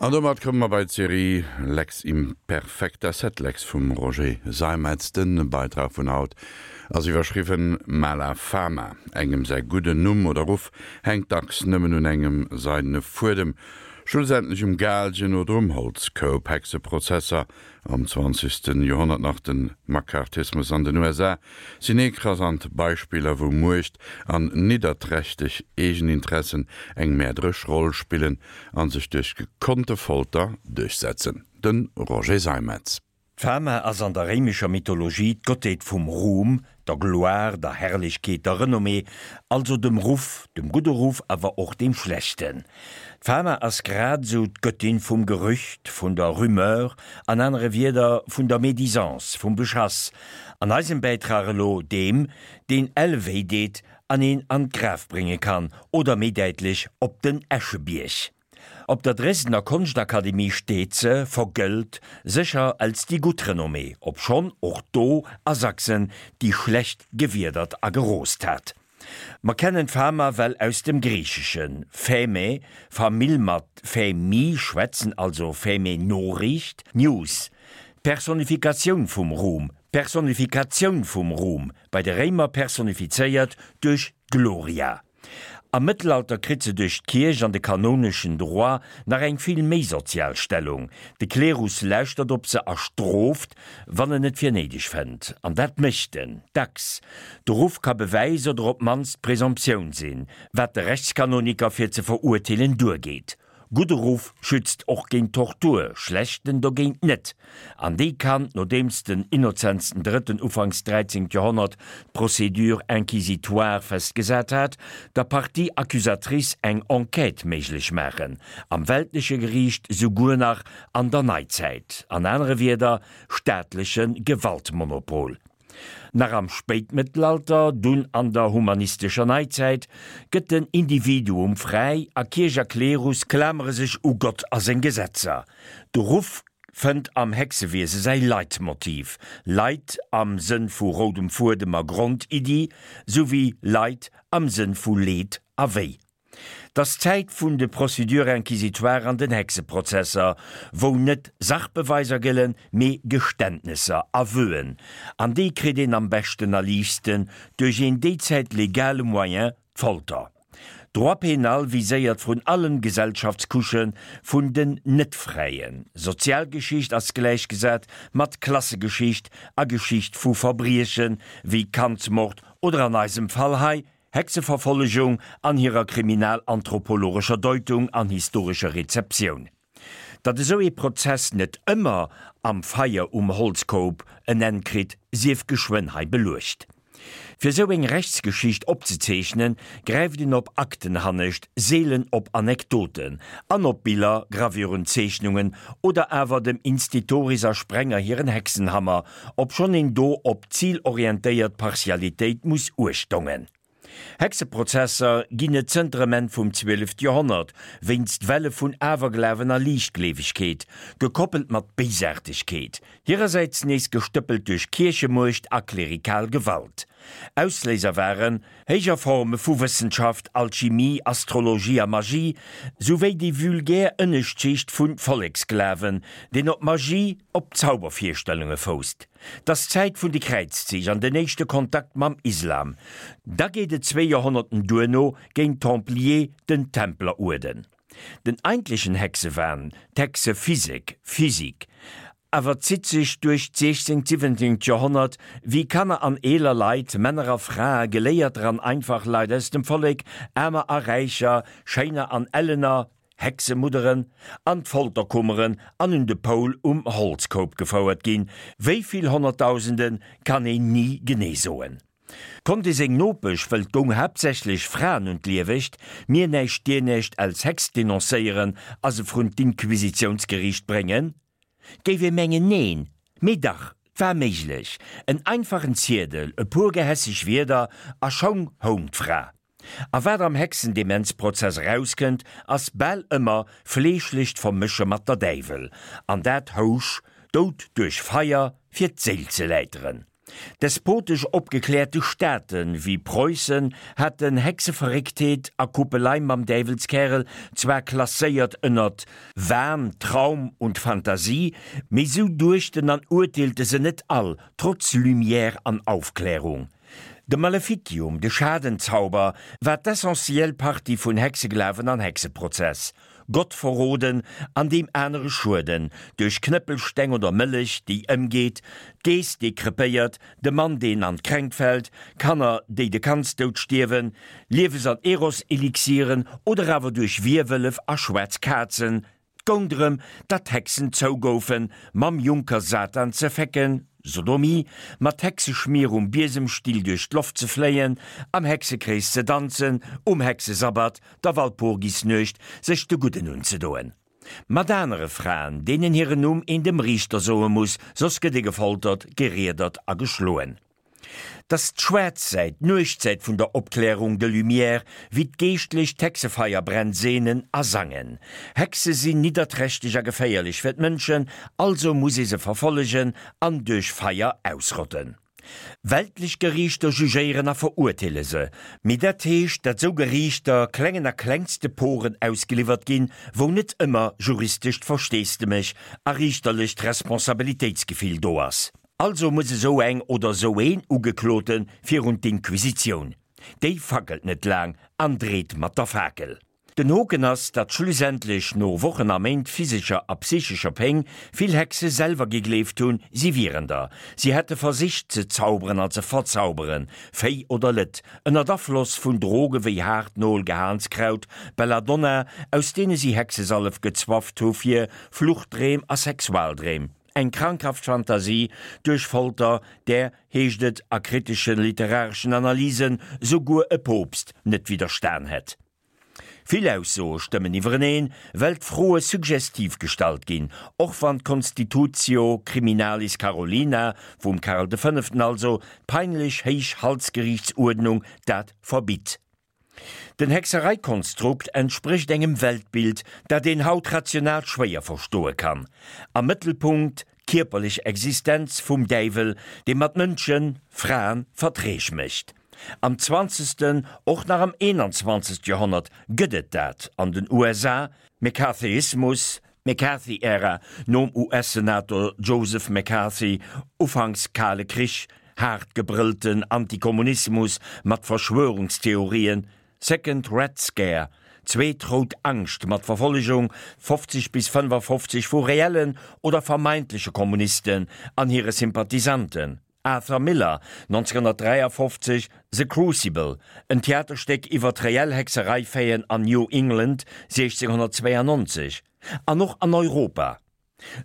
An domat komme mer bei d'Serie Lex Imperfecta Sed Lex vum Roger Seimetz. De Beitrag vun haut ass iwwerschriwwen Mala Fama. Engem säi gudden Numm oder Ruff hänkt dacks nëmmen un engem seidene Fuedem, schlussendlech um Gaalgen oder um Holzkoup. Hexeprozesser am zwanzegste Joerhonnert, nach de McCarthyismus an den USA sinn ekrasant Beispiller, wou Muecht an nidderträchteg Eegeninteressen eng mäerderesch Roll spillen a sech duerch gekonnte Folter duerchsetzen. De Roger Seimetz. D'Fama ass an der réimescher Mythologie d'Gottheet vum Ruhm, der Gloire, der Herrlechkeet, der Renommée, also dem Ruff, dem gudde Ruff, awer och deem schlechten. D'Fama ass grad esou d'Göttin vum Gerücht, vun der Rumeur, an anere Wierder vun der Médisance, vum Beschass, an eisem Bäitrag elo deem, deen elle wéi deet an een an d'Graf brénge kann, oder méi däitlech op den Äschebierg. Op der Dresdner Konschtakademie steet se, vergëllt, sécher als déi gutt Renommée, obschonn och do a Sachsen déi schlecht gewiedert a geroost hat. Mer kennen d'Fama well aus dem Griicheschen, Phäme, Famill mat Phämi schwätzen, also Phäme Noriicht, News, d'Personifikatioun vum Ruhm, Personifikatioun vum Ruhm, bei de Réimer personifizéiert duerch d'Gloria. Am Mëttelalter kritt se duerch d'Kierch an de kanoneschen Droit nach eng vill méi sozial Stellung. De Klerus lauschtert op se a strooft, wann en et fir néideg fënnt. An dat mécht en dacks. De Ruff ka Bewäis oder op d'mannst Presomptioun sinn, wat de Rechtskanoniker fir ze verurteelen duergeet. Gudde Ruff schützt och géint Tortur, schlechten dogéint net. An déi kann, nodeems den Innozenz den Drëtten ufanks 13. Joerhonnert d'Procédure inquisitoire festgesat hat, der Partie accusatrice eng Enquête méiglech maachen, am weltleche Geriicht, souguer nach an der Neizäit. An anere Wierder, staatleche Gewaltmonopol. Nach am Spéitmëttelalter, dunn an der humanistescher Neizäit, gëtt den Individuum fräi a Kierch a Klerus klamere sech u Gott a seng Gesetzer. De Ruff fënnt am Hexewiese säi Leitmotiv, Leit am Sënn vu roudem Fuedem a Grondiddi, souwéi Leid am Sënn vu Leed a Wéi. 't ass d'Zäit vun de Procédures inquisitoires an den Hexeprozesser, wou net Sachbeweiser gëllen, mee Geständnesser, Aveuen. An déi kritt een am beschten a liichtsten duerch een déizäit legale Moyen, d'Folter. Droit pénal viséiert vrun allem Gesellschaftscouchë vun den Net-Fräien. Sozialgeschicht ass gläichgesat mat Klassegeschicht a Geschicht vu Verbrieche wéi Kandsmord oder an eisem Fall hei Hexeverfollegung an hirer kriminalanthropologescher Deutung an historescher Rezeptioun. Datt esou ee Prozess net ëmmer am Feier um Holzkoup en Enn kritt, sief geschwënn hei beluecht. Fir esou eng Rechtsgeschicht opzezeechnen, gräift een op Akten hannescht, seelen op Anekdoten an op Biller, Gravuren, Zeechnungen oder awer dem Institoris a Sprenger hiren Hexenhammer, obschonn een do op zilorientéiert Partialitéit muss uechtongen. Hexeprozesser ginn et zënter em Enn vum 12. Joerhonnert, wéinst Welle vun Awerglawen a Liichtgleewegkeet, gekoppelt mat Béisaartegkeet, hirersäits nees gestëppelt duerch Kierchemuecht a klerikal Gewalt. Ausléiser waren héijer Forme vu Wëssenschaft, Alchimie, Astrologie a Magie, souwéi déi vulgär Ënneschtschicht vun Volleksglawen, deen op Magie, op Zaubervirstellunge fousst. 't ass d'Zäit vun de Kräizzich an den éischte Kontakt mam Islam. Da geet et zwéi Joerhonnerten duerno géint d'Templier, den Templeruerden. Den eigentlechen Hexewahn, d'Hexephysek, Physik, awer zitt sech duerch d'siechzéngt, siwwenzéngt Joerhonnert, wéi Kanner an eeler Leit, Männer a Frae, Geléierter an einfach Leit aus dem Vollek, Aarmer a Räicher, Schéiner an Ellener, Hexemudderen, an d'Folterkummeren an un de Poul um Holzkoup gefouert ginn. Wéi vill Honnertdausende kann een ni genee soen. Konnt ee seng Nopesch, wëll 't goung haaptsächlech Fraen un d'Liewecht, mir näischt dir näischt als Hex denoncéieren a se vrun d'Inquisitiounsgeriicht bréngen? 't géif ee mengen neen, mee dach, 't war méiglech. En einfachen Ziedel, e puer gehässeg Wierder a schonn houng d'Fra. A wat am Hexendemenzprozess erauskënnt, ass bal ëmmer fleeschlecht Vermësche mat der Däiwel, an dat housch Doud duerch Feier, fir d'Séil ze läiteren. Despotesch opgekläerte Staate wéi Preussen haten Hexeverrécktheet a Kuppelei mam Däiwelskärel zwar klasséiert ënnert Wahn, Traum und Fantasie, mee sou duechten an urteelte se net all, trotz Lumière an Aufklärung. De Maleficium, de Schadenzauber, war d'essentiell Partie vun Hexeglawen an Hexeprozess. Gott verroden an deem anere schueden, duerch Knëppelsteng oder Mëllech, déi ëmgeet, d'Geess, déi krepéiert, de Mann, deen an d'Kränkt fält, Kanner, déi de Kandsdoud stierwen, Liewes an Eros-Elixieren oder awer duerch Wierwëllef a schwaarz Kazen. 't goung drëm, datt d'Hexen zougoufen, mam Junker Satan ze fecken, Sodomie, mat Hexeschmier um Biesemstill duerch d'Loft ze fléien, am Hexekrees ze danzen, um Hexesabbat, der Walpurgisnuecht, sech de Gudden unzedoen. Mat anere Fraen, deenen hiren Numm een dem Riichter soe muss, soss gëtt ee gefoltert, geriedert a geschloen. T'ass d'schwaarz Säit, d'Nuechtsäit vun der Opklärung, de Lumières, wéi d'Geeschtlech d'Hexefeierbränn seenen a sangen. Hexe sinn nidderträchteg a geféierlech fir d'Mënschen, also muss ee se verfollegen an duerch Feier ausrotten. Weltlech Geriichter jugéieren a verurteele se, mee dat heescht, dat sou Geriichter klengen a klengste Poren ausgeliwwert ginn, wou net ëmmer juristescht Versteesdemech a riichterlecht Responsabilitéitsgefill do ass. Also muss esou eng oder esou een Ugeklote virun d'Inquisitioun. Déi fackelt net laang an dreet mat der Fakel. Den Hoken ass, datt schlussendlech, no Wochen a Méint physescher a psychescher Péng, vill Hexe selwer gegleeft hunn, si wieren der. Si hätte versicht ze zauberen an ze verzauberen, Véi oder Lëtt, ënnert Afloss vun Droge wéi Haartnol, Gehaanskraut, Belladonna, aus deene si Hexesallef gezwafft hu fir Fluchtdreem a Sexualdreem. Eng krankhaft Fantasie duerch Folter, där, heescht et a kritesche literareschen Analysen, souguer e Poopst net widderstan hätt. Vill Aussoe stëmmen iwwereneen, well d'Froe suggestiv gestallt ginn, och wann d'Constitutio Criminalis Carolina, vum Karl de Fënneften also, d'peinlech héich Halsgeriichtsuerdnung, dat verbitt. Den Hexereikonstrukt entsprécht engem Weltbild, dat een haut rational schwéier verstoe kann. Am Mëttelpunkt d'kierperlech Existenz vum Däiwel, dee mat Mënschen, Fraen, Verträg mécht. Am zwanzegsten, och nach am 21. Joerhonnert gëtt et dat an den USA, McCarthyismus, McCarthy-Ära, nom US-Senator Joseph McCarthy, ufanks Kale Krich, haart gebrëllten Antikommunismus mat Verschwörungstheorien, Second Red Scare, Zweet rout Angscht mat Verfollegung 50 bis 55 vu reellen oder vermeintleche Kommunisten an hire Sympathisanten, Arthur Miller, 1953, The Crucible, en Theaterstéck iwwer d'reell Hexereifaiten an New England 1692, an och an Europa.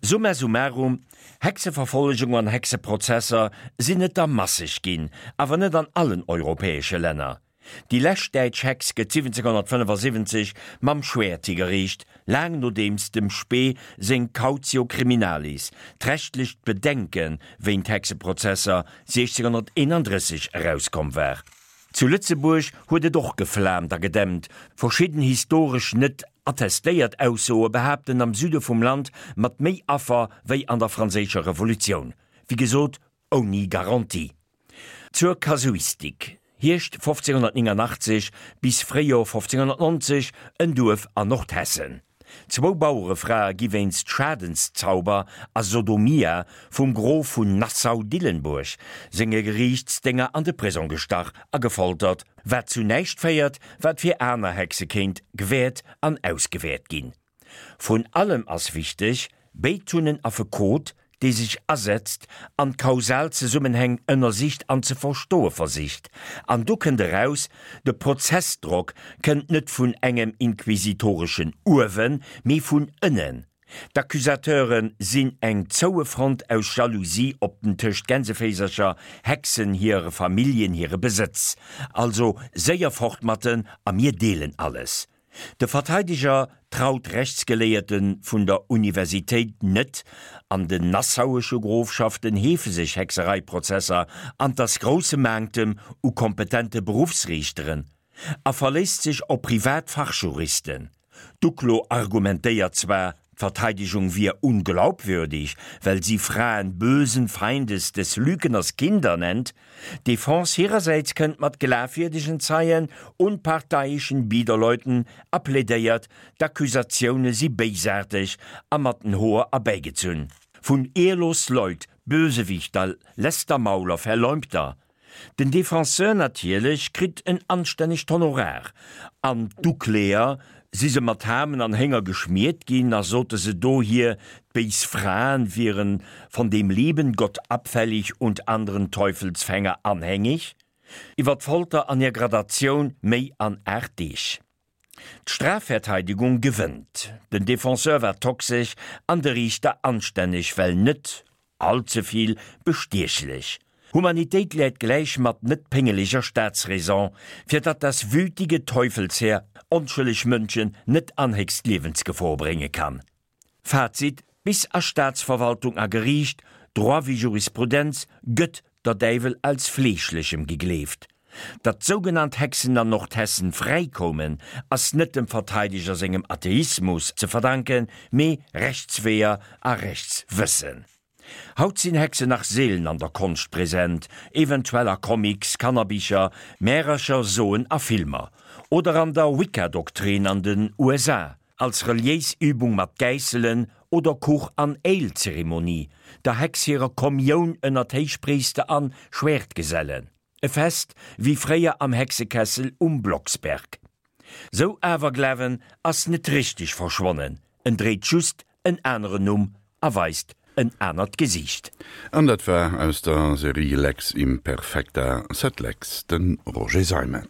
Summa summarum, Hexeverfollegung an Hexeprozesser sinn et der masseg ginn, awer net an allen europäesche Länner. Déi lescht däitsch Hex gëtt 1775 mam Schwäert higeriicht, laang nodeems dem Spee seng Cautio Criminalis, d'rechtlecht Bedenke wéint Hexeprozesser, 1631 erauskomm war. Zu Lëtzebuerg huet et och geflaamt a gedämpt, verschidden historesch net attestéiert Aussoe behaapten am Süde vum Land mat méi Affer wéi an der Franséischer Revolutioun, wéi gesot ouni Garantie. Zur Kasuistik, Hierscht 1589 bis Fréijor 1590, en Duerf an Nordhessen. Zwou Bauerefrae gi wéinst Schadenszauber a Sodomia vum Grof vun Nassau-Dillenburg senge Geriichtsdénger an de Prisong gestach a gefoltert, wat zu näischt féiert, wat fir aner Hexe kéint gewäert an ausgewäert ginn. Vrun allem ass wichteg, béid hunn en Affekot, dee sech asetzt an d'kausal Zesummenhäng ënnersicht an ze verstoe versicht. An do kënnt eraus, de Prozessdrock kënnt net vun engem inquisitoreschen Uewen, mee vun ënnen. D'Accusateure sinn eng zoue Front aus Jalousie op den tëscht Gänseféisercher, Hexen, hire Familljen, hire Besëtz. Also séier fort mat en a mir deelen alles. De Verteideger traut Rechtsgeléierte vun der Universitéit net, an den nassauesche Grofschaften heefe sech Hexereiprozesser an 't ass grousse Manktem u kompetente Beruffsriichteren, a verléisst sech op privat Fachjuristen. D'Uklo argumentéiert zwar. D'Verteidigung wier unglaubwürdig, well si Fraen bösen Feindes des Lügners Kinder nennt. D'Defense hirersäits kënnt mat glafwierdegen Zeien, unparteiischen Biederleuten a plädéiert, d'Accusatioune si béisaarteg a mat den Hoer erbäigezunn. Vun ehrlos Leut, Bösewichter, Lästermauler, Verleumder. Den Defenseur natierlech kritt en anstännegt Honorar, an d'Ukläer, si se mat Hamen an Hénger geschmiert ginn a sote se dohier, d'béis Fraen wieren von dem lieben Gott abfällig und anderen Teufelsfänger anhängig? Iwwer d'Folter an hir Gradatioun méi an 8 Deeg. D'Strafverteidigung gewënnt, den Defenseur war toxesch an de Riichter anstänneg, well net all ze vill bestiechlech. Humanitéit läit gläich mat net péngeleger Staatsräson, fir datt das wütige Teufelsheer onschëlleg Mënschen net an héchst Liewensgefor brénge kann. Fazit, Bis a Staatsverwaltung a Geriicht, Droit wéi Jurisprudenz, gëtt der Däiwel als Fleeschlechem gegleeft. Datt sougenannt Hexen an Nordhessen fräi koumen, ass net dem Verteideger sengem Atheismus ze verdanken, mee Rechtsweeër a Rechtswëssen. Haut sinn Hexen nach seelen an der Konscht present, eventuell a Comics, Kannerbicher, Märercher, Soen a Filmer. Oder an der Wicca-Doktrin an den USA, als reliéis Übung mat Gäisselen oder Kuch an Ale-Zeremonie, der Hex hirer Kommioun ënnert Héichpriister an Schwertgesellen. E Fest wéi fréier am Hexekessel um Blocksberg. Sou Awerglawen ass net richteg verschwonnen, en dréit just en aneren Numm a weist en anert Gesiicht. An dat war aus der Serie Lex Imperfecta sed Lex, de Roger Seimetz.